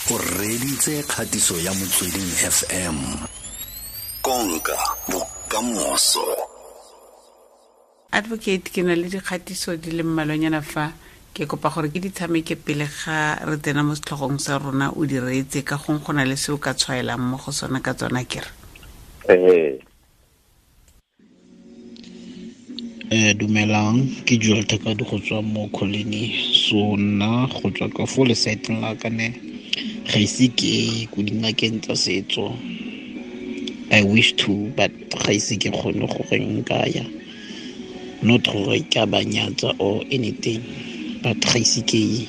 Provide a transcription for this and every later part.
O reditse kgatiso ya Motsweding FM. Konka bokamoso. Advocate, ke na le dikgatiso di le mmalwanyana fa ke kopa gore ke di tshameke pele ga re tsena mo setlhogong sa rona, o di reetse ka gong go na le se o ka tshwaelang mo go sona ka tsona kere. Dumelang, ke Joel Thakadi go tswa mo Colony. So nna go tswa ka fo lesaeteng la ka ne ga ise ke ko dingakeng tsa setso. I wish to, but ga ise ke kgone gore nka ya. Not gore ke a ba nyatsa or anything, but ga ise ke ye.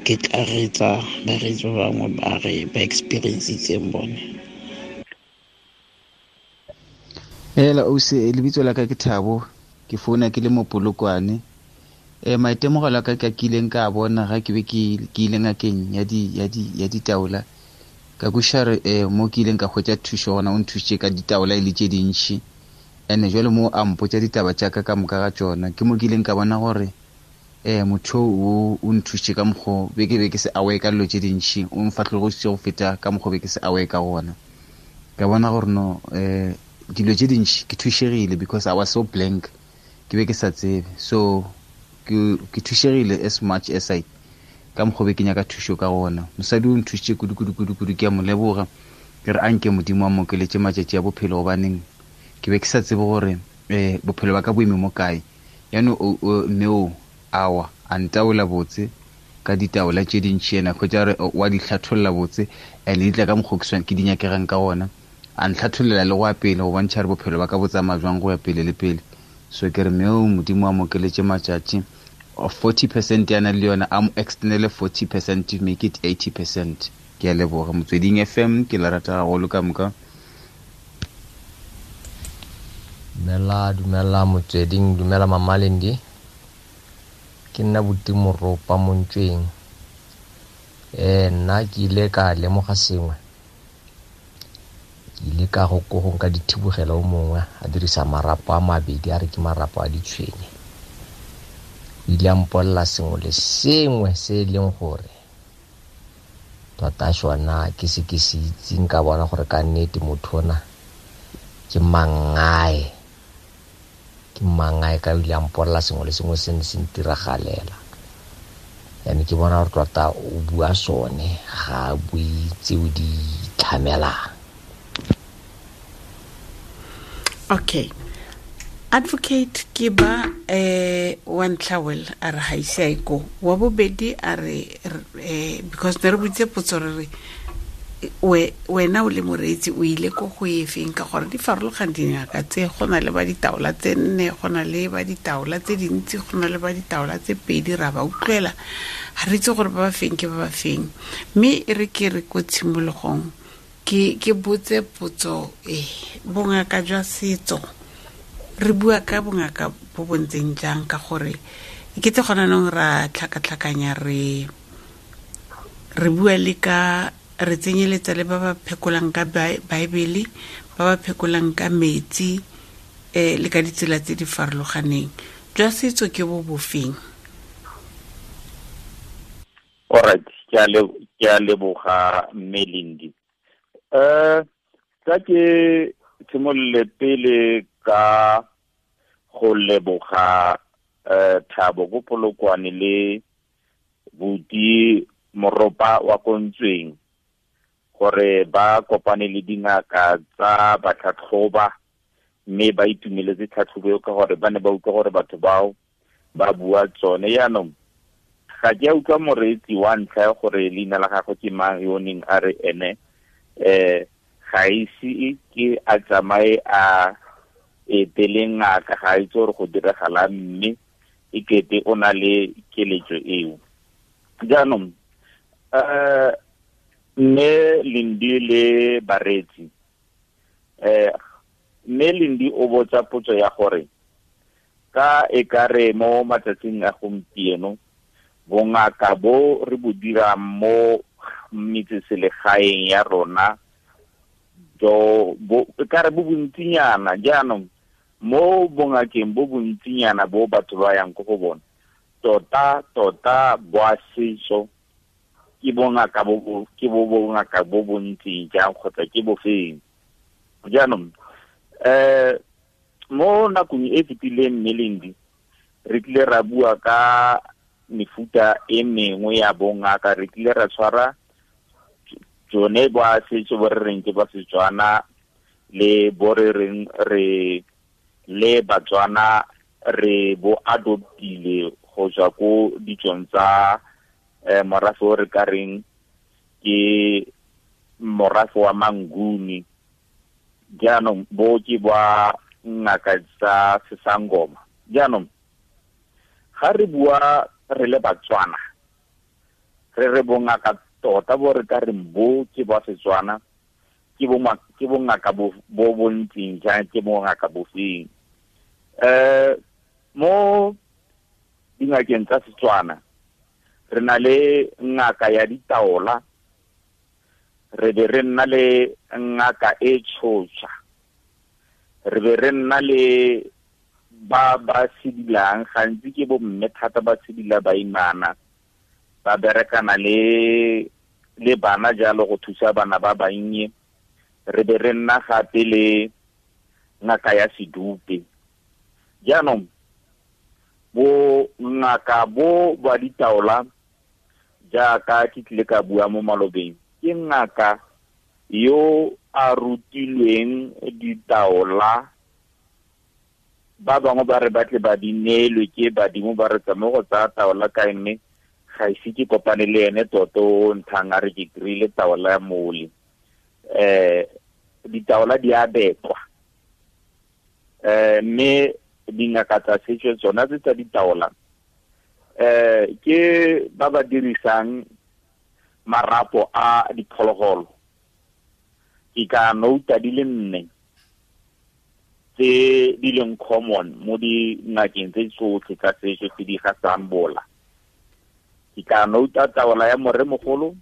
Ke tla reetsa bareetsi ba bangwe ba re ba experience-itseng bone. Hela ausi, lebitso la ka ke Thabo, ke founa ke le mo Polokwane. Maitemogelo a ka ke a kileng ka bona ga ke be ke ile ngakeng ya ditaola. Ka kwešiša re, mo ke ileng ka hwetša thušo gona, o nthušitše ka ditaola e le tše dintši. Ene jwale mo a mpotša ditaba tša ka ka moka ga tšona, ke mo ke ileng ka bona gore, motho o nthušitše ka mokgwa be ke be ke se aware ka dilo tše dintši, o mfahlogositše go feta ka mokgwa be ke se aware ka gona. Ka bona gore no, dilo tše dintši ke thušegile because I was so blank, ke be ke sa tsebe. So ke thušegile as much as I ka mokgwa be ke nyaka thušo ka gona. Mosadi o nthušitše kudu, kudu, kudu, kudu, ke a mo leboga. Ke re anke Modimo a mo okeletše matšatši a bophelo, gobaneng ke be ke sa tsebe gore, bophelo ba ka bo eme mo kae. Yaanong mme o awa a ntaola botse ka ditaola tše dintši, ena hwetša re wa di hlatholla botse, and di tla ka mokgwa ke di nyakegang ka gona. A ntlhathollela le go ya pele go bontšha re bophelo ba ka bo tsamaya jwang go ya pele le pele. So ke re mme o Modimo a mo okeletše matšatši. 40% ya na le yona, a mo extendele 40% to make it 80%. Ke a leboga. Motsweding FM, ke la rata haholo ka moka. Dumela, dumela Motsweding, dumela Mama Lendi. Ke nna Buti Moropa Montšweng. Nna ke ile ka lemoga sengwe. Ke ile ka go ko go nka dithibogelo o mongwe a dirisa marapo a mabedi, a re ke marapo a ditshwenye. O ile a mpolelela sengwe le sengwe se e leng gore tota sona ke se ke se itseng, ka bona gore ka nnete motho ona ke mangae. Ke mangae ka o ile a mpolelela sengwe le sengwe se ne se ntiragalela. Yaanong ke bona gore tota o bua sone, ga a bue tseo di itlhamelang. Okay. Advocate ke ba, wa ntlha well a re ga ise a ye ko. Wa bobedi a re, because ne re botse potso re re, wena o le moreetsi o ile ko go efeng, ka gore di farologane dingaka tse, go na le ba ditaola tse nne, go na le ba ditaola tse dintsi, go na le ba ditaola tse pedi, ra ba utlwela, ga re itse gore ba ba feng ke ba ba feng. Mme e re ke re ko tshimologong ke botse potso e, bongaka jwa setso, re bua ka bongaka bo bo ntseng jang, ka gore e kete gona nong ra tlhakatlhakanya, re bua le ka, re tsenyeletsa le ba ba phekolang ka Baebele, ba ba phekolang ka metsi, le ka ditsela tse di farologaneng. Jwa setso ke bo bofeng? All right, ke a leboga mme Lindi. Tla ke simolole pele ka go leboga, Thabo ko Polokwane le Buti Moropa wa Kontsweng gore ba kopane le dingaka tsa batlhatlhoba mme ba itumeletse tlhatlhobo eo ka gore ba ne ba utlwa gore batho bao ba bua tsone. Yaanong ga ke a utlwa moreetsi wa ntlha ya gore leina la gagwe ke mang yo o neng a re ene, ga ise ke a tsamaye a etele ngaka, ga a itse gore go diragalang, mme e kete o na le keletso eo. Jaanong, mme Lindi le bareetsi, mme Lindi o botsa potso ya gore ka e ka re mo matsatsing a gompieno bongaka bo re bo dirang mo metseselegaeng ya rona jo bo e ka re bo bontsinyana. Jaanong mo bongakeng bo bontsinyana bo batho ba yang ko go bona, tota tota bo a setso Ke bongaka bo ke bo bongaka bo bontseng jang kgotsa ke bofeng. Jaanong mo nakong e fetileng, mme Lendi, re tlile ra bua ka mefuta e mengwe ya bongaka. Re tlile ra tshwara tsone ba setso bo re reng ke ba Setswana le bo re reng re le Batswana re bo adoptile go tswa ko ditsong tsa morafe o re ka reng ke morafe wa Manguni. Jaanong bo ke ba ngaka tsa sesangoma. Jaanong ga re bua re le Batswana, re re bongaka tota bo re ka reng bo ke ba Setswana, ke bongaka bo bontseng jang, ke bongaka bofeng. Mo dingakeng tsa Setswana re na le ngaka ya ditaola, re be re nna le ngaka e tshotsha, re be re nna le ba ba sedilang, gantsi ke bo mme thata ba sedila baimana, ba berekana le bana jalo go thusa bana ba bannye. Re be re nna gape le ngaka ya sedupe. Jaanong bo ngaka bo ba ditaola, jaaka ke tlile ka bua mo malobeng, ke ngaka yo a rutilweng ditaola. Ba bangwe ba re batle ba di neelwe ke badimo, ba re tsamaye go tsaya taola kae, mme ga ise ke kopane le ene toto o nthang a re ke kry-ile taola ya mole. Ditaola di a bekwa, mme dingaka tsa setso tsona tse tsa ditaola ke ba ba dirisang marapo a diphologolo. Ke ka nouta di le 4 tse di leng common mo dingakeng tse tsotlhe tsa setso tse di gasang bola. Ke ka nouta taola ya moremogolo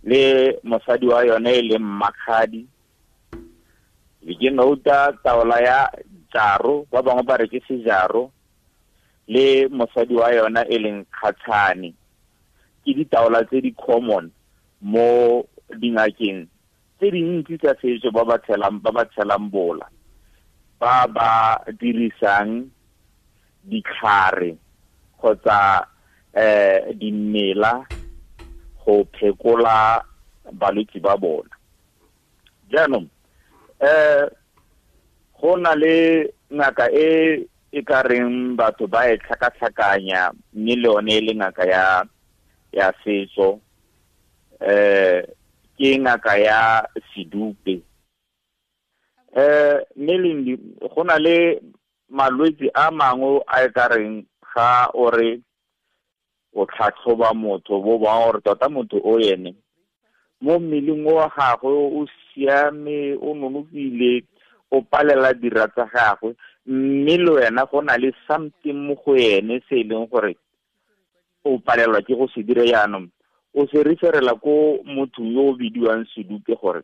le mosadi wa yone e leng Mmakgadi, be ke nouta taola ya jaro, ba bangwe ba re ke sejaro, le mosadi wa yona e leng Kgatshane. Ke ditaola tse di common mo dingakeng tse dintsi tsa setso ba ba tshelang bola, ba ba dirisang ditlhare kgotsa dimela go phekola balwetse ba bona. Jaanong go na le ngaka e e ka reng batho ba e tlhakatlhakanya, mme le yone e le ngaka ya setso, ke ngaka ya sedupe. Mme Lendi, go na le malwetse a mangwe a e ka reng ga o re o tlhatlhoba motho, bo ba gore tota motho o ene mo mmeleng wa gagwe o siame, o nonofile, o palela dira tsa gagwe, mme le wena go na le something mo go ene se e leng gore o palelwa ke go se dira. Jaanong o se referela ko mothong yo o bidiwang sedupe gore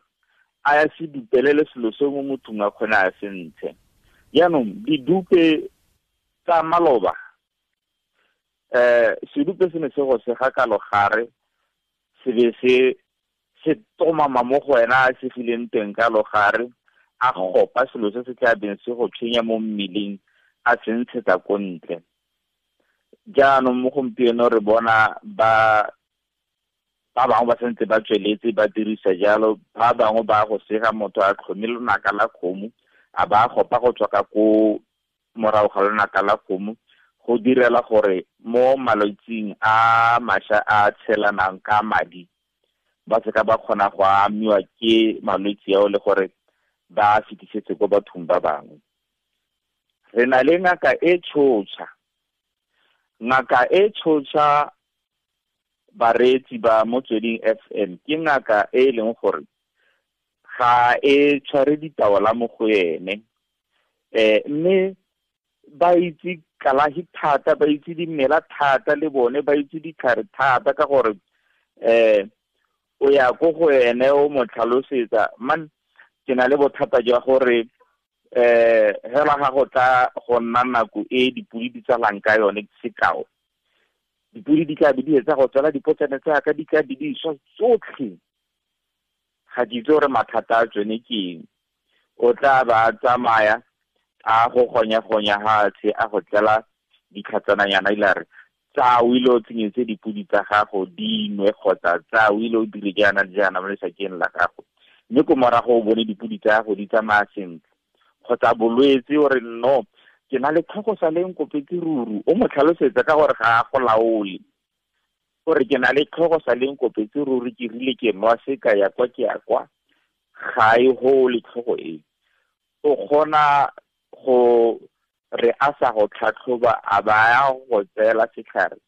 a ya se dupelele selo se mo mothong a kgone a se ntshe. Jaanong didupe tsa maloba, sedupe se ne se go sega ka logare, se be se tomama mo go wena a segileng teng ka logare, a gopa selo se se tla beng se go tshwenya mo mmeleng, a se ntshetsa ko ntle. Jaanong mo gompieno re bona ba bangwe ba santse ba tsweletse ba dirisa jalo, ba bangwe ba go sega motho a tlhome lonaka la kgomo, a ba gopa go tswa ka ko morago ga lonaka la kgomo, go direla gore mo malwetsing a mašwa a tshelanang ka madi ba seka ba kgona go amiwa ke malwetse ao le gore ba fetisetse ko bathong ba bangwe. Re na le ngaka e tshotsha. Ngaka e tshotsha, bareetsi ba Motsweding FM, ke ngaka e e leng gore ga e tshware ditaola mo go ene, mme ba itse kalafi thata, ba itse dimela thata, le bone ba itse ditlhare thata, ka gore o ya ko go ene o mo tlhalosetsa, man ke na le bothata jwa gore hela ga go tla go nna nako e dipodi di tsalang ka yone, sekao Dipodi di tla be di etsa go tswala dipotsane tsaka, di tla be di swa tsotlhe. Ga ke itse gore mathata a tsone ke eng. O tla ba tsamaya a go gonya-gonya hatshe, a go tlela ditlhatsananyana, ile a re tsa o ile o tsenyetse dipodi tsa gago di nwe, kgotsa tsa o ile o dire jaana le jaana mo lesakeng la gago, mme ko morago o bone dipodi tsa gago di tsamaya sentle. Kgotsa bolwetse, o re no, ke na le tlhogo sa leng kopetse ruru, o mo tlhalosetsa ka gore ga a go laole, gore ke na le tlhogo sa leng kopetse ruri, ke rile ke nwa se ka ya kwa ke ya kwa, ga e gole tlhogo e. O kgona go re a sa go tlhatlhoba, a ba ya go tseela setlhare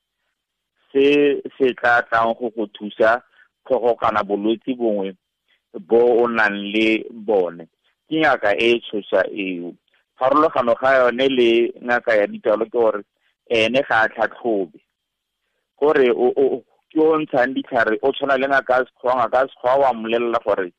se se tla tlang go go thusa tlhogo kana bolwetse bongwe bo o nang le bone. Ke ngaka e tshosa eo. Pharologano ga yone le ngaka ya ditalo ke gore ene ga a tlhatlhobe, gore o ke o ntshang ditlhare, o tshwana le ngaka ya sekgowa. Ngaka ya sekgowa wa mmolelela gore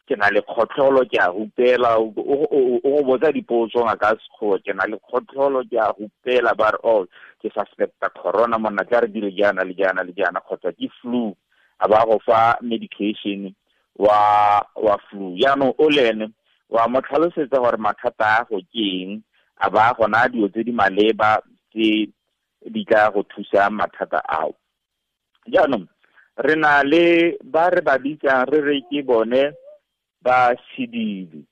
ke na le kgotlholo, ke a rupela, o go botsa dipotso ngaka ya sekgowa, ke na le kgotlholo, ke a rupela, ba re oh ke suspecta corona monna, tla re dire jaana le jaana le jaana, kgotsa ke flu, a ba go fa medication wa flu. Jaanong o le ene wa mo tlhalosetsa gore mathata a go ke eng, a ba gona dilo tse di maleba tse di tla go thusa mathata ao. Jaanong re na le ba re ba bitsang re re ke bone ba sedidi.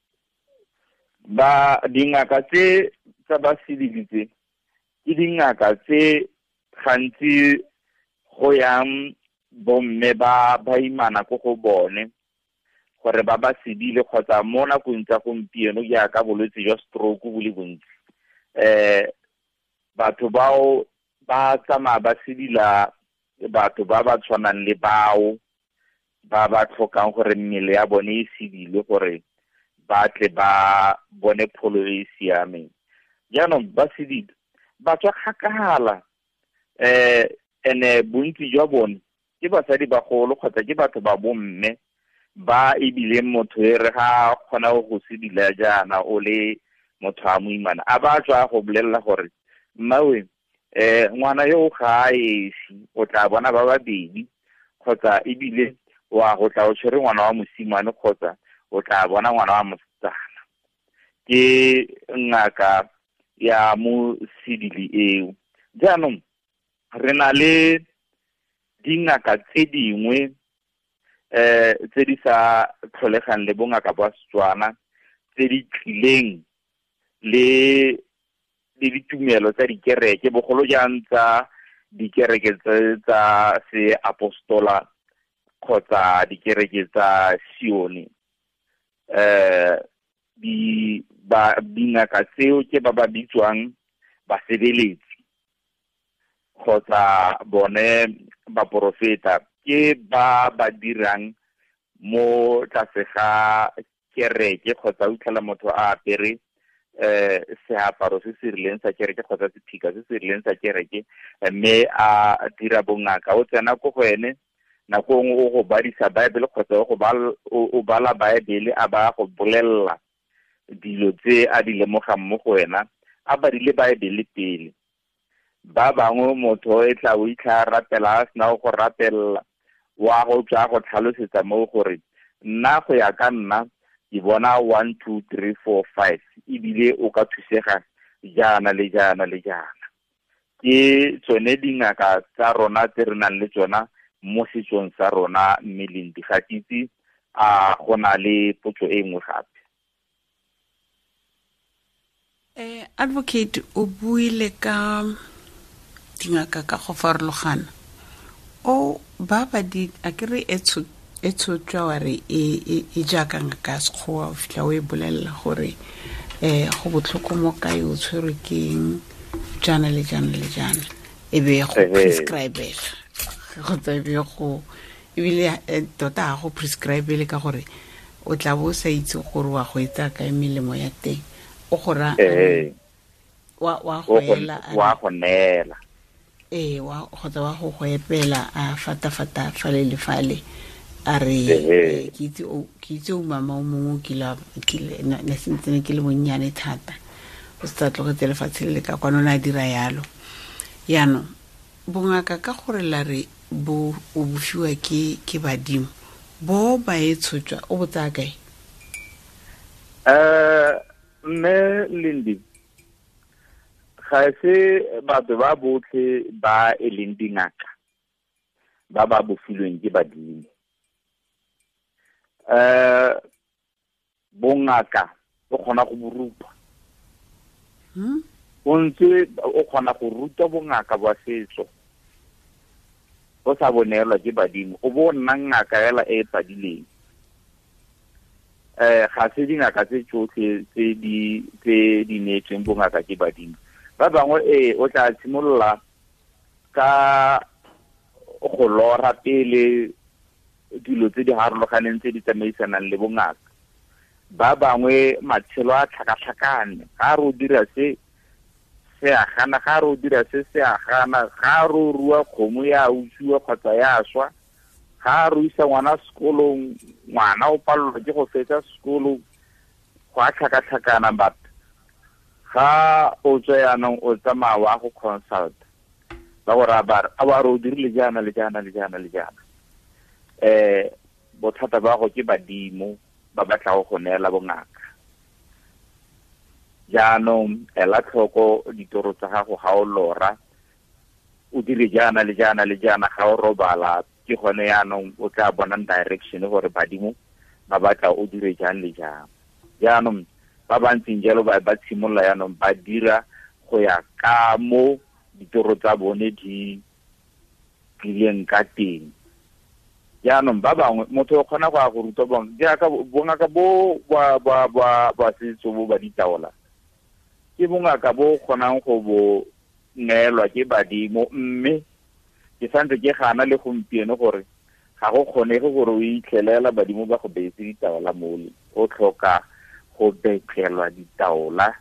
Ba dingaka tse tsa ba sedidi tse ke dingaka tse gantsi go yang bomme ba baimana ko go bone gore ba ba sedile, kgotsa mo nakong tsa gompieno jaaka bolwetse jwa stroke bo le bontsi, batho bao ba tsamaya ba sedila batho ba ba tshwanang le bao ba ba tlhokang gore mmele ya bone e sedile gore ba tle ba bone pholo e e siameng. Jaanong ba sedile ba tswa kgakala, ene bontsi jwa bone ke basadi bagolo kgotsa ke batho ba bomme ba ebileng motho e re ga kgona go sedila jaana o le motho a moimana, a ba tswa go bolelela gore mmawe ngwana yo ga a esi, o tla bona ba babedi, kgotsa ebile wa go tla o tshwere ngwana wa mosimane, kgotsa o tla bona ngwana wa mosetsana. Ke ngaka ya mo sedili eo. Jaanong re na le dingaka tse dingwe tse di sa tlholegang le bongaka ba Setswana, tse di tlileng le ditumelo tsa dikereke, bogolo jang tsa dikereke tsa seapostola kgotsa dikereke tsa Sione. Dingaka tseo ke ba ba bitswang basebeletsi kgotsa bone baporofeta, ke ba ba dirang mo tlase ga kereke, kgotsa o itlhela motho a apere seaparo se se rileng sa kereke kgotsa sephika se se rileng sa kereke, mme a dira bongaka. O tsena ko go ene nako nngwe o go badisa Bible kgotsa o bala Bible, a ba go bolelela dilo tse a di lemogang mo go wena, a badile Bible pele. Ba bangwe motho e tla o itlha rapela, a sena go rapela, wa go tswa go tlhalosetsa mo gore nna go ya ka nna ke bona 1 2 3 4 5, ebile o ka thusega jaana le jaana le jaana. Ke tsone dingaka tsa rona tse re nang le tsona mo setsong sa rona, mme Lendi ga ke itse a go na le potso e nngwe gape. Advocate, o buile ka dingaka ka go farologana. O ba ba di a ke re e tshotswa wa re e jaaka ngaka ya sekgowa, o fitlha o e bolelela gore go botlhoko mo kae, o tshwerwe ke eng, jaana le jaana le jaana, e be go prescribela kgotsa e be go ebile tota ga go prescribele ka gore o tla bo o sa itse gore wa go etsa kae melemo ya teng, o go ra wa go ela, wa go neela, wa kgotsa wa go go epela a fata-fata fale le fale, a re ke itse o mama o mongwe o kile ne sentse ke le monnyane thata, O se tlogetse lefatshe le le ka kwano, o ne a dira yalo. Yaanong bongaka ka gore la re bo o bofiwa ke badimo, bo ba e tshotswa o bo tsaya kae? Mme Lindi, ga se batho ba botlhe ba e leng dingaka ba ba bofilweng ke badimo. Bongaka o kgona go bo rupa. O ntse o kgona go ruta bongaka ba setso o sa bonelwa ke badimo, o bo nna ngaka fela e e padileng. Ga se dingaka tse tsotlhe tse di neetsweng bongaka ke badimo. Ba bangwe o tla simolola ka go lora pele dilo tse di harologaneng tse di tsamaisanang le bongaka. Ba bangwe matshelo a tlhakatlhakane, ga re o dira se se a gana, ga re o dira se se a gana, ga re o rua kgomo ya utswiwa kgotsa ya swa, ga re o isa ngwana sekolong, ngwana o palelwa ke go fetsa sekolo, go a tlhakatlhakana. But ga o tswa yaanong o tsamaya wa go consult, ba go raya ba re, a wa re o dirile jaana le jaana le jaana le jaana. Bothata ba go ke badimo ba batla go neela bongaka. Jaanong ela tlhoko ditoro tsa gago ga o lora, o dire jaana le jaana le jaana, ga o robala, ke gone yaanong o tla bonang direction gore badimo ba batla o dire jang le jang. Jaanong ba ba ntseng jalo ba tshimolola yaanong ba dira go ya ka mo ditoro tsa bone di tlileng ka teng. Jaanong ba bangwe motho o kgona go ya go ruta bongwe jaaka bongaka bo ba setso bo ba ditaola, ke bongaka bo kgonang go bo neelwa ke badimo, mme ke santse ke gana le gompieno gore ga go kgonege gore o itlhelela badimo ba go beetse ditaola mole. O tlhoka go betlelwa ditaola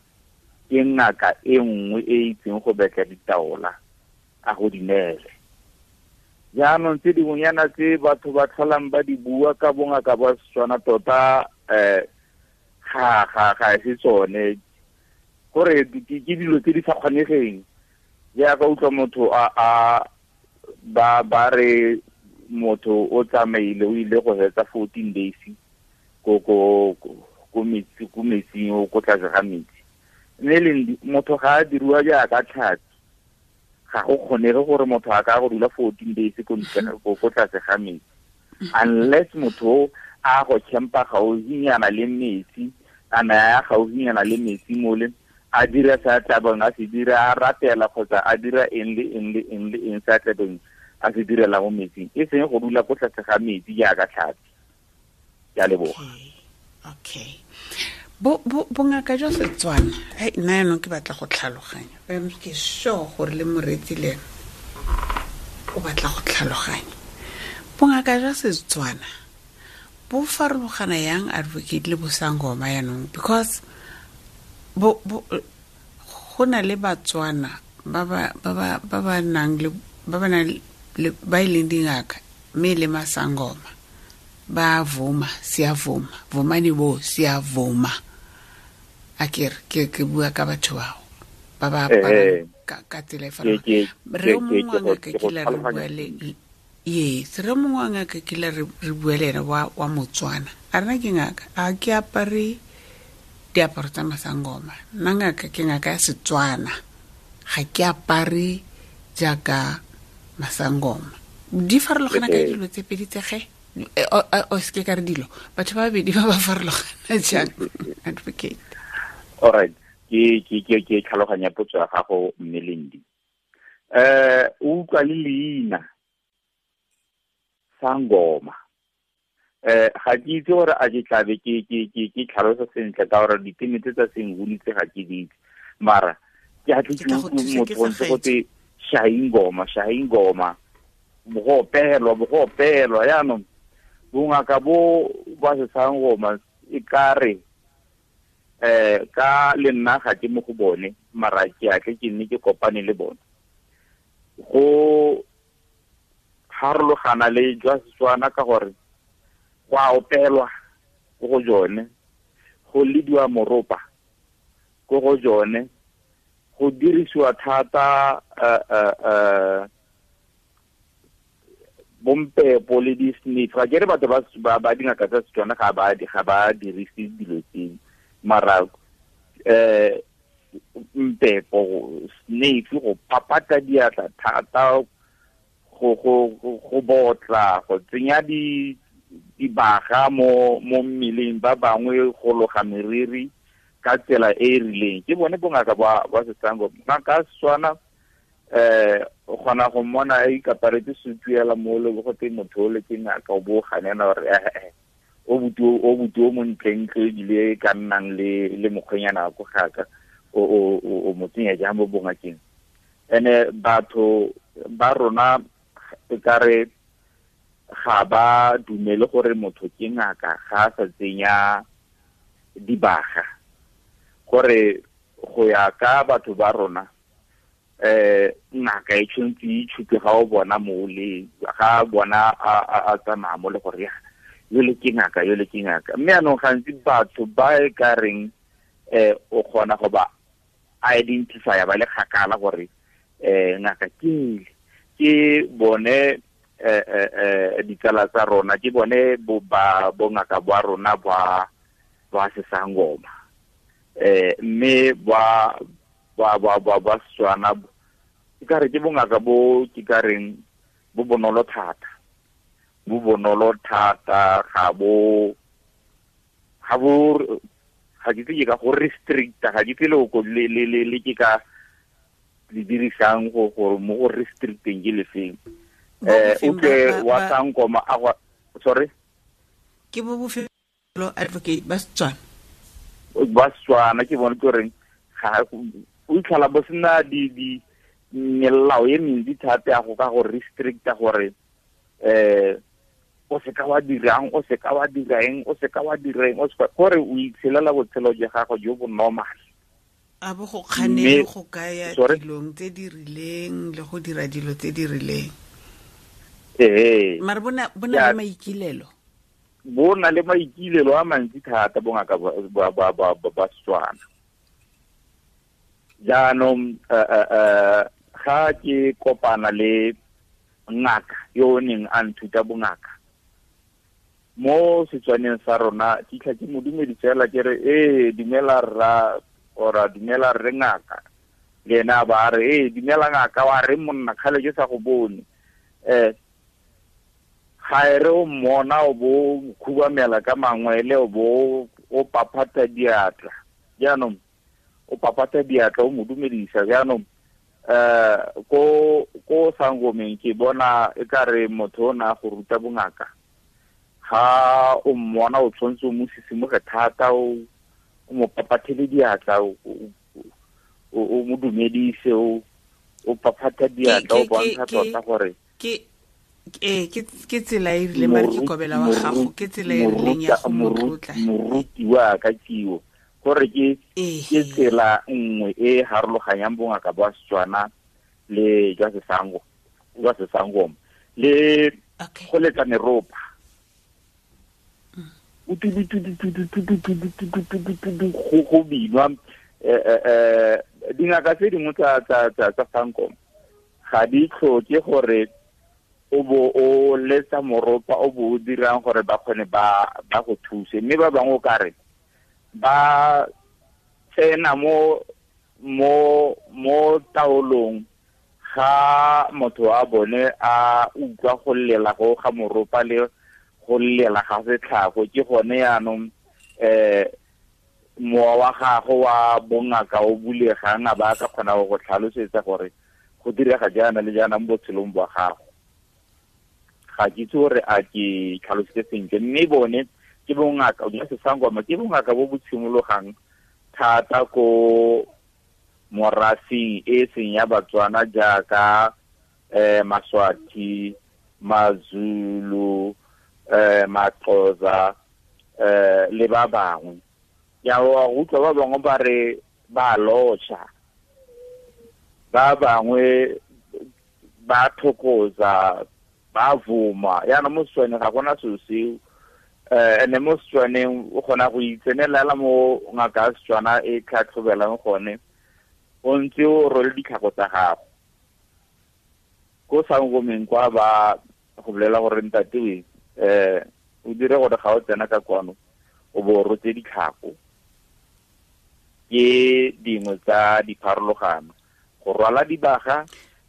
ke ngaka e nngwe e itseng go betla ditaola a go di neele. Jaanong tse dingwenyana tse batho ba tlholang ba di bua ka bongaka ba Setswana tota, ga e se tsone, gore ke dilo tse di sa kgonegeng. Jaaka utlwa motho a ba re motho o tsamaile o ile go hetsa 14 days ko metsi, ko metsing, o ko tlase ga metsi. Mme le motho ga a diriwa jaaka tlhapi, ga go kgonege gore motho a ka go dula 14 days ko ntle ko tlase ga metsi, unless motho a go campa gaufinyana le metsi, a na ya gaufinyana le metsi mole, a dira sa tlabeng a se dira, a ratela kgotsa a dira eng le eng le eng le eng sa tlabeng a se direla mo metsing, e seng go dula ko tlase ga metsi jaaka tlhapi. Ke a leboga. Okay. Bongaka jwa Setswana, nna yaanong ke batla go tlhaloganya. Ke sure gore le moreetsi le ene o batla go tlhaloganya. Bongaka jwa Setswana bo farologana yang advocate le bosangoma yaanong? Because bo go na le Batswana ba ba nang le ba e leng dingaka mme le masangoma ba vuma, siyavuma, vumani bo siyavuma. Akere ke bua ka batho bao ba ba aparang ka tsela e farologaneng. Re mongwe wa ngaka kile re bua le yes, re mongwe wa ngaka kile re bua le ene wa Motswana. A rena ke ngaka, a ke apare diaparo tsa masangoma. Nna ngaka ke ngaka ya Setswana, ga ke apare jaaka masangoma. Di farologana ka dilo tse pedi tse ge? O se ke ka re dilo, batho ba babedi ba ba farologana jang, advocate? All right, ke tlhaloganya potso ya gago mme Lindi. O utlwa le leina sangoma. Ga ke itse gore a ke tlabe ke tlhalosa sentle ka gore diteme tse tsa senguni tse ga ke di itse, mara ke a tle ke utlwe motho ntse go te shahingoma, bo go opelwa. Jaanong bongaka bo ba sesangoma e ka re ka le nna ga ke mo go bone, mara ke a tle ke nne ke kopane le bone. Go harologana le jwa Setswana ka gore go a opelwa ko go jone, go lediwa moropa, ko go jone go dirisiwa thata bompepo le di-sniff. Ga ke re batho ba dingaka tsa Setswana ga ba dirise dilo tseo, mara mpepo, sniff, go papata diatla thata, go botla, go tsenya dibaga mo mmeleng, ba bangwe go loga meriri ka tsela e e rileng. Ke bone bongaka ba Setswana. Ngaka Setswana o kgona go mmona a ikaparetse sutu ela mo le go te motho o le ke ngaka, o bo ganela gore o buti o montlentle ebile ka nnang le mokgwenyana ko gaka o mo tsenya jang mo bongakeng. Ene batho ba rona e kare ga ba dumele gore motho ke ngaka ga a sa tsenya dibaga, gore go ya ka batho ba rona ngaka e tshwanetse e itshupe ga o bona mole, ga bona a tsamaya mo le gore ya yole ke ngaka, yole ke ngaka. Mme anong gantsi batho ba e ka reng o kgona go ba identify ba le kgakala gore ngaka ke bone ditsala tsa rona, ke bone bongaka ba rona ba Sesangoma, mme ba Setswana ke ka re ke bongaka bo ke ka reng bo bonolo thata, ga bo ga ke itse ka go restricta, ga ke itse le ke ka le dirisang go gore mo go restricteng ke lefeng. O tle wa Sangoma a go sorry ke bo bofelo advocate ba Setswana, ba Setswana ke bone ke reng ga o itlhala bo sena di melao e mentsi thata ya go ka go restricta gore o seka wa dirang, o seka wa dirang, o seka wa dirang, o seka gore o itshelela botshelo jwa gago jo bo normal. A bo go kganele go kaya dilong tse di rileng le go dira dilo tse di rileng. Mara bona le maikilelo, bona le maikilelo a mantsi thata bongaka ba Setswana. Jaanong ga ke kopana le ngaka yo o neng a nthuta bongaka mo Setswaneng sa rona, ke itlha ke mo dumedisa fela ke re ee dumela rra, ora dumela rre ngaka, le ena ba re ee dumela ngaka, wa re monna kgale ke sa go bone. Ga e re o mmona o bo khubamela ka mangwele, o bo o paphata diatla, jaanong o papata diatla o mo dumedisa. Jaanong ko Sangomeng ke bona e ka re motho o na go ruta bongaka, ga o mmona o tshwanetse o mo sisimoge thata, o mo papathele diatla, o mo dumedise, o paphata diatla, o bontsha tota gore ke tsela e rileng, mare ke kobela wa gago, ke tsela e rileng ya go mo tlotla moruti wa ka kiwo, gore ke tsela nngwe e harologanyang bongaka ba Setswana le jwa Sesangoma le go letsa meropa. Go binwa dingaka tse dingwe tsa Sangoma ga di tlhoke gore o bo o letsa moropa o bo o dirang gore ba kgone ba go thuse, mme ba bangwe o ka re ba tsena mo taolong ga motho wa bone a utlwa go lela go ga moropa le go lela ga setlhago. Ke gone yaanong mowa wa gago wa bongaka o bulegang, a ba ka kgona go tlhalosetsa gore go direga jaana le jaana mo botshelong bwa gago. Ga ke itse gore a ke tlhalositse sentle, mme bone ke bongaka jwa Sesangoma, ke bongaka bo bo tshimologang thata ko morafeng e seng ya Batswana jaaka Maswati, Mazulu, Maxhosa, le ba bangwe. Ya wa utlwa ba bangwe ba re ba lotšha, ba bangwe ba thokoza, ba vuma. Yana mo Setswaneng ga gona selo seo. Ene mo Setswaneng o kgona go itsenelela mo ngaka ya Setswana e tlhatlhobelang gone, o ntse o rwele ditlhako tsa gago. Ko sangomeng kwa ba go bolela gore ntate we, o dire gore ga o tsena ka kwano o bo o rotse ditlhako. Ke dingwe tsa dipharologano. Go rwala dibaga,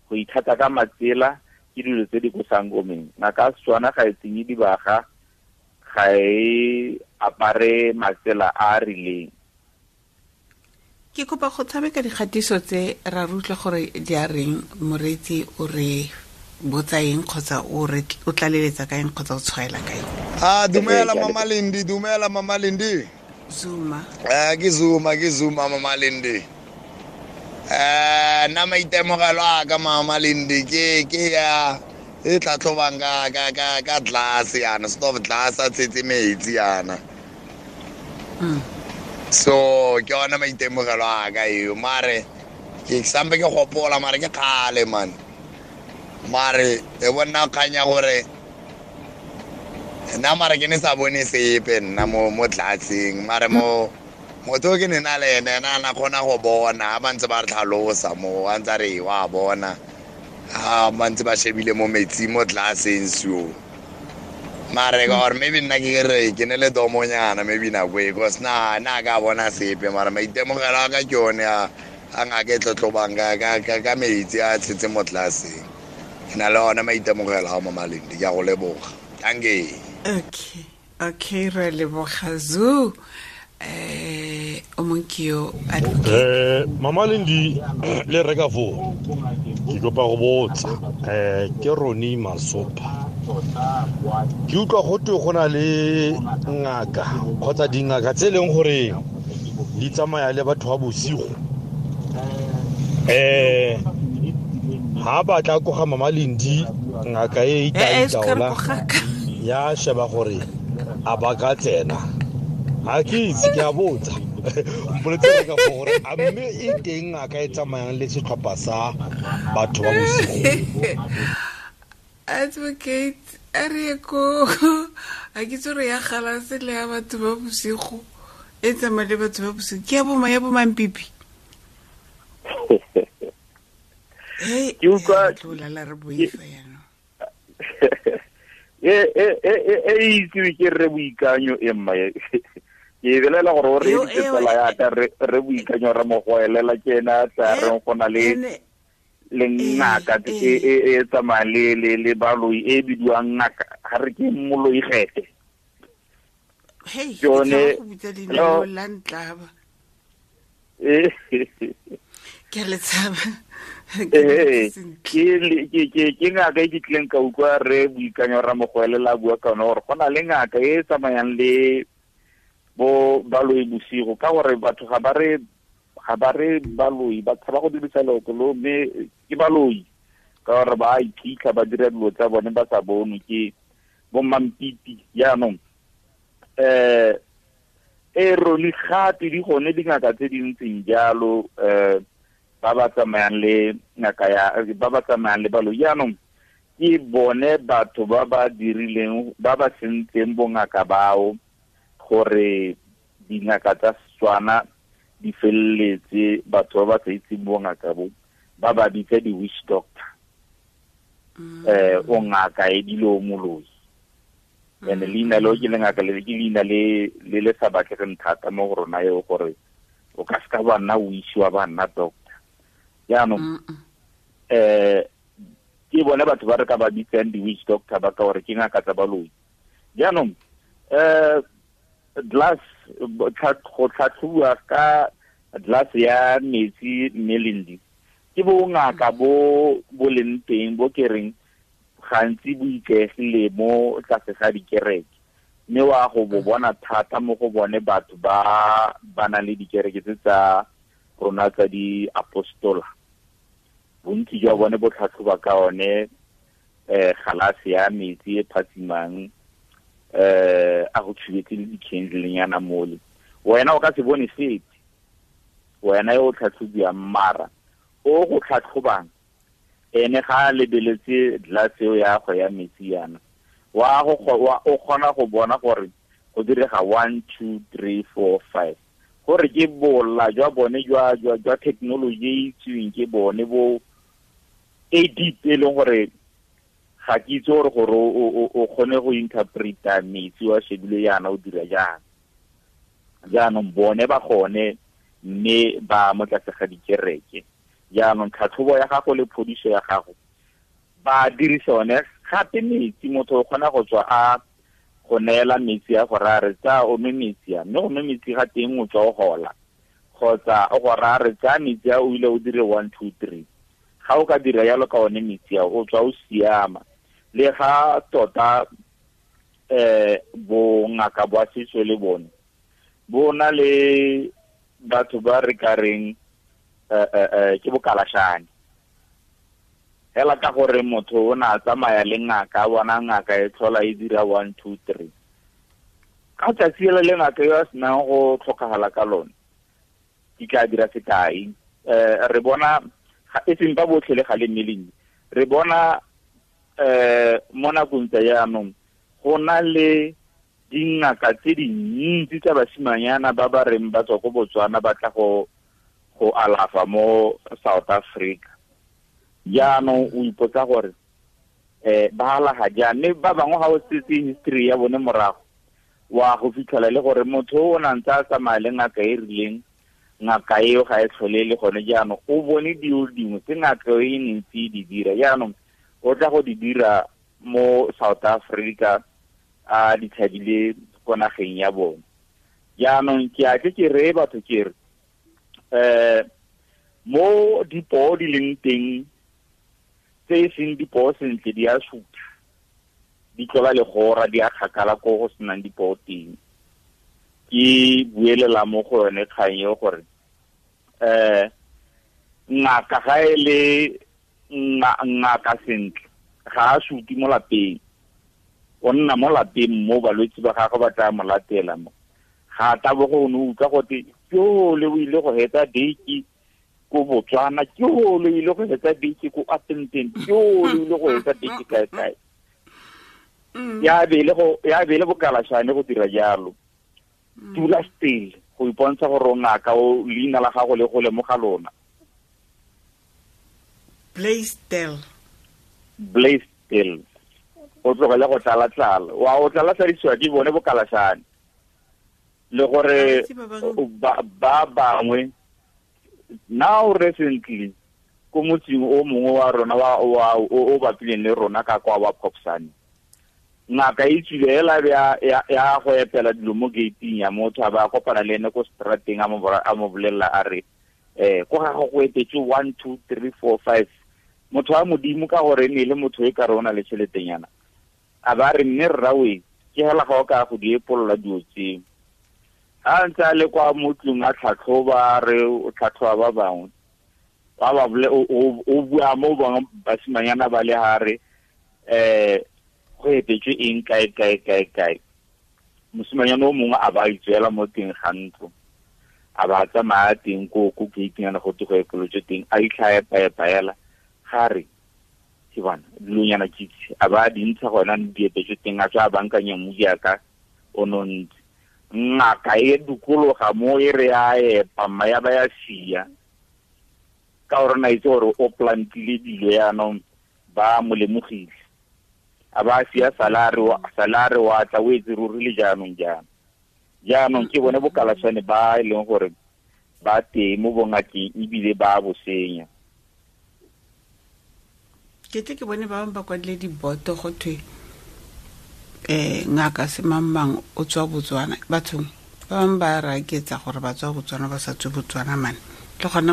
go ithata ka matsela, ke dilo tse di ko sangomeng. Ngaka ya Setswana ga e tsenye dibaga, ga e apare matsela a a rileng. Ke kopa go tshameka dikgatiso tse ra re utlwa gore di a reng, moreetsi o re botsa eng kgotsa o re o tlaleletsa ka eng kgotsa o tshwaela ka eng. Dumela Mama Lindi, dumela Mama Lindi. Zuma. Ke Zuma, ke Zuma Mama Lindi. Nna maitemogelo a ka Mama Lindi ke ya e tlhatlhobang ka glass yana, stove glass a tshetse metsi yana. So ke yona maitemogelo a ka eo, mare ke sampe ke gopola, mare ke kgale man. Mare e bona kganya gore nna mare ke ne sa bone sepe nna mo tlatseng, mare mo motho ke ne na le ene, ena a na kgona go bona, ba ntse ba re tlhalosa mo, a ntse a re wa bona, ha ba ntse ba shebile mo metsi mo tlatseng so. Mare ka gore maybe nna ke re ke ne le domonyana maybe nako e, because na ka bona sepe, mare maitemogelo a ka ke one a ngaka e tlotlobang ka metsi a tshetse mo tlatseng. Ke na le ona maitemogelo a Mama Lindi, ke a go leboga. Thank you. Okay, okay, re leboga Zoo. O mongwe ke yo advocate. Mama Lindi le reka foo, ke kopa go botsa, ke Ronnie Masopa. Ke utlwa go twe go na le ngaka kgotsa dingaka tse e leng gore di tsamaya le batho ba bosigo. Ha ba tla ko ga Mama Lindi, ngaka e e tla itaola, ya sheba gore a ba ka tsena. Ha ke itse, ke a botsa. Mpoletse ka gore a mme e teng ngaka e tsamayang le setlhopha sa batho ba bosigo. Advocate, a re ko, a ke tsore ya galase le ya batho ba bosigo, e tsamaya le batho ba bosigo. Ke ya bo ya bo Mampipi. Hey, Ke utlwa ya tlo lala re boifa jaanong. E itsewe ke Rre Boikanyo e mma e. Ke e belela gore o re Eo, editse eo, tsala ya e, ka, re Boikanyo re mo goelela ke ena a tla e, reng go na le ene, le ngaka e tsamaya le baloi e bidiwang ngaka, ga re ke moloi gete. Hey, Ke yone, ke tshaba go bitsa leina hello? leo la ntlaba. Ke a le tshaba. Ke ngaka e ke tlileng ka utlwa Rre Boikanyo ra mo goelela a bua ka yone gore go na le ngaka e e tsamayang le bo baloi bosigo, ka gore batho ga ba re, ga ba re baloi, ba tshaba go dirisa leoto leo, mme ke baloi ka gore ba iphitlha, ba dira dilo tsa bone ba sa bonwe ke bo Mampipi. Jaanong, e rone gape di gone dingaka tse di ntseng jalo, ba ba tsamayang le ngaka ya, ba ba tsamayang le baloi. Jaanong ke bone batho ba ba dirileng, ba ba sentseng bongaka bao gore dingaka tsa Setswana di feleletse batho ba ba sa itseng bongaka bo, ba ba bitsa di-witch doctor. O ngaka e bile o moloi. And leina leo ke lengaka le, ke leina le le sa batlegeng thata mo go rona eo, gore o ka seka wa nna witch wa ba nna doctor. Jaanong, ke bone batho ba re ka ba bitsang di-witch doctor ba ka gore ke ngaka tsa baloi. Jaanong, glass, go tlhatlhobiwa ka glass ya metsi mme Lindi, ke bongaka bo bo leng teng bo ke reng gantsi bo ikaegile mo tlase ga dikereke, mme wa go bo bona thata mo go bone batho ba ba nang le dikereke tse tsa rona tsa di-apostola. Bontsi jwa bone bo tlhatlhoba ka one, galase ya metsi e phatsimang, a go tshubetse le di-candle-nyana mole. Wena o ka se bone sepe, wena yo o tlhatlhobiwang, mara o go tlhatlhobang ene ga a lebeletse glass eo ya go ya metsi yana, wa go wa, o kgona go bona gore Go direga 1 2 3 4 5. Gore ke bola jwa bone jwa jwa jwa technology e itseweng ke bone bo e deep e leng gore ga ke itse gore gore o kgone go interpreta metsi wa shebile yana o dira jang. Jaanong bone ba gone mme ba mo tlase ga dikereke. Jaanong tlhatlhobo ya gago le phodiso ya gago ba dirisa one gape metsi. Motho o kgona go tswa a go neela metsi a gore a re tsa o nwe metsi a, mme go nwe metsi ga teng o tswa o gola, kgotsa o gore a re tsaya metsi a o ile o dire 1 2 3. Ga o ka dira yalo ka one metsi a o tswa o siama. Le ga tota bongaka ba setso le bone bo na le batho ba re ka reng ke bokalashane hela, ka gore motho o na tsamaya le ngaka, bona ngaka e tlhola e dira 1 2 3. Ka tsatsi le le ngaka yo a senang go tlhokagala ka lone, ke tla dira sekai. Re bona e seng ba botlhe le ga le mmeleng, re bona mo nakong tsa jaanong go na le dingaka tse dintsi tsa basimanyana ba ba reng ba tswa ko Botswana ba tla go alafa mo South Africa. Jaanong o ipotsa gore ba alaga jang, mme ba bangwe ga o setse history ya bone morago wa go fitlhela le gore motho o na ntse a tsamaya le ngaka e rileng, ngaka eo ga e tlhole le gone. Jaanong o bone dilo dingwe tse ngaka e ntse e di dira, jaanong o tla go di dira mo South Africa a di tshabile ko nageng ya bone. Jaanong ke a tle ke reye batho ke re mo dipoo di leng teng tse e seng dipoo sentle di a supa, di tlola legora, di a kgakala ko go senang dipoo teng. Ke buelela mo go yone kgang eo gore ngaka ga e le ngaka sentle ga a suti mo lapeng, o nna mo lapeng mo balwetse ba gagwe ba tla mo latela mo. Ga tabogo o ne utlwa gote ke ole o ile go hetsa date ko Botswana, ke ole o ile go hetsa date ko Appington, ke ole o ile go hetsa date kae kae. Ya be le bokalashane go dira jalo. Tula still go ipontsha gore o ngaka, o leina la gago le go lemoga lona. Blaisdell. O tlogele go tlala-tlala, wa o tlala-tladisiwa ke bone bokalashane. Le gore ba bangwe now recently ko motseng o mongwe wa rona wa o bapileng le rona ka kwa wa Popsane, ngaka e tswile hela ya go epela dilo mo gate-ing ya motho, a ba kopana le ene ko strateng, a mo bolelela a re ko ga go etetse 1 2 3 4 5. Motho wa modimo ka gore ne le motho e ka re o na le tšheletenyana, a ba re mme rrawe ke hela ga o ka go di epolola dilo tseo. A ntse a le kwa motlong a tlhatlhoba, re o tlhatlhoba ba bangwe ba ba o bua mo bangwe basimanyana ba le hare go epetswe eng kae kae kae kae. Mosimanyana o mongwe a ba itswela mo teng ga ntlo, a ba tsamaya teng ko gate-nyana go te go epolotswe teng, a itlha epa-epa ga re ke bona dilonyana kitse a ba di ntsha gona di epetswe teng, a tswa a bankanya mmu jaaka o nontse. Ngaka e dukologa mo e re a epa mma ya ba ya sia, ka gore na itse gore o plantile dilo yaanong ba mo lemogile, a ba sia salare wa tla o etse ruri le jaanong jaana. Jaanong ke bone bokalashane ba e leng gore ba teng mo bongakeng ebile ba bo senya. Ke tle ke bone ba bangwe ba kwadile diboto go thwe ngaka semangmang o tswa Botswana. Bathong ba bangwe ba raketsa gore ba tswa Botswana ba sa tswe Botswana mane. Le gona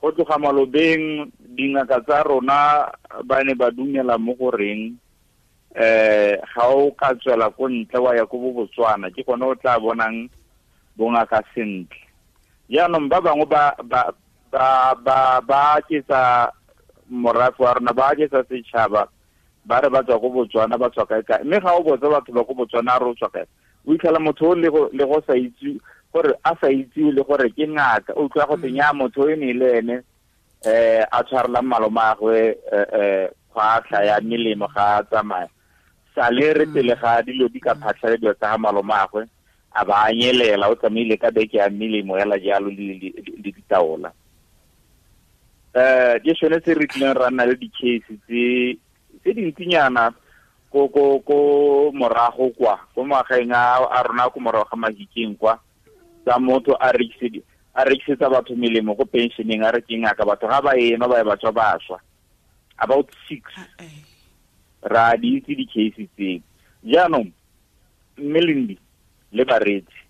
go tloga malobeng dingaka tsa rona ba ne ba dumela mo goreng ga o ka tswela ko ntle wa ya ko bo Botswana, ke gone o tla bonang bongaka sentle. Jaanong ba bangwe ba ba ketsa morafe wa rona, ba ketsa setšhaba, ba re ba tswa ko Botswana, ba tswa kae kae. Mme ga o botsa batho ba ko Botswana re o tswa kae, o itlhela motho o le go sa itse gore a sa itse le gore ke ngaka, o utlwa go tsenya motho e ne le ene a tshwarelang malomagwe kgwatlha ya melemo ga a tsamaya. Sale re pele ga dilo di ka phatlhalediwa tsa ga malomagwe a ba anyelela, o tsamaile ka beke ya melemo hela jalo le ditaola. Ke sone se re tlileng ra nna le di-case tse dintsinyana ko morago kwa ko magaeng a rona ko morago ga Mahikeng kwa, tsa motho a rekisetsa batho melemo ko pensioneng, a re ke ngaka, batho ga ba ema ba ye ba tswa ba swa. About 6 ra di itse di-case tseo. Jaanong mme Lendi le bareetsi,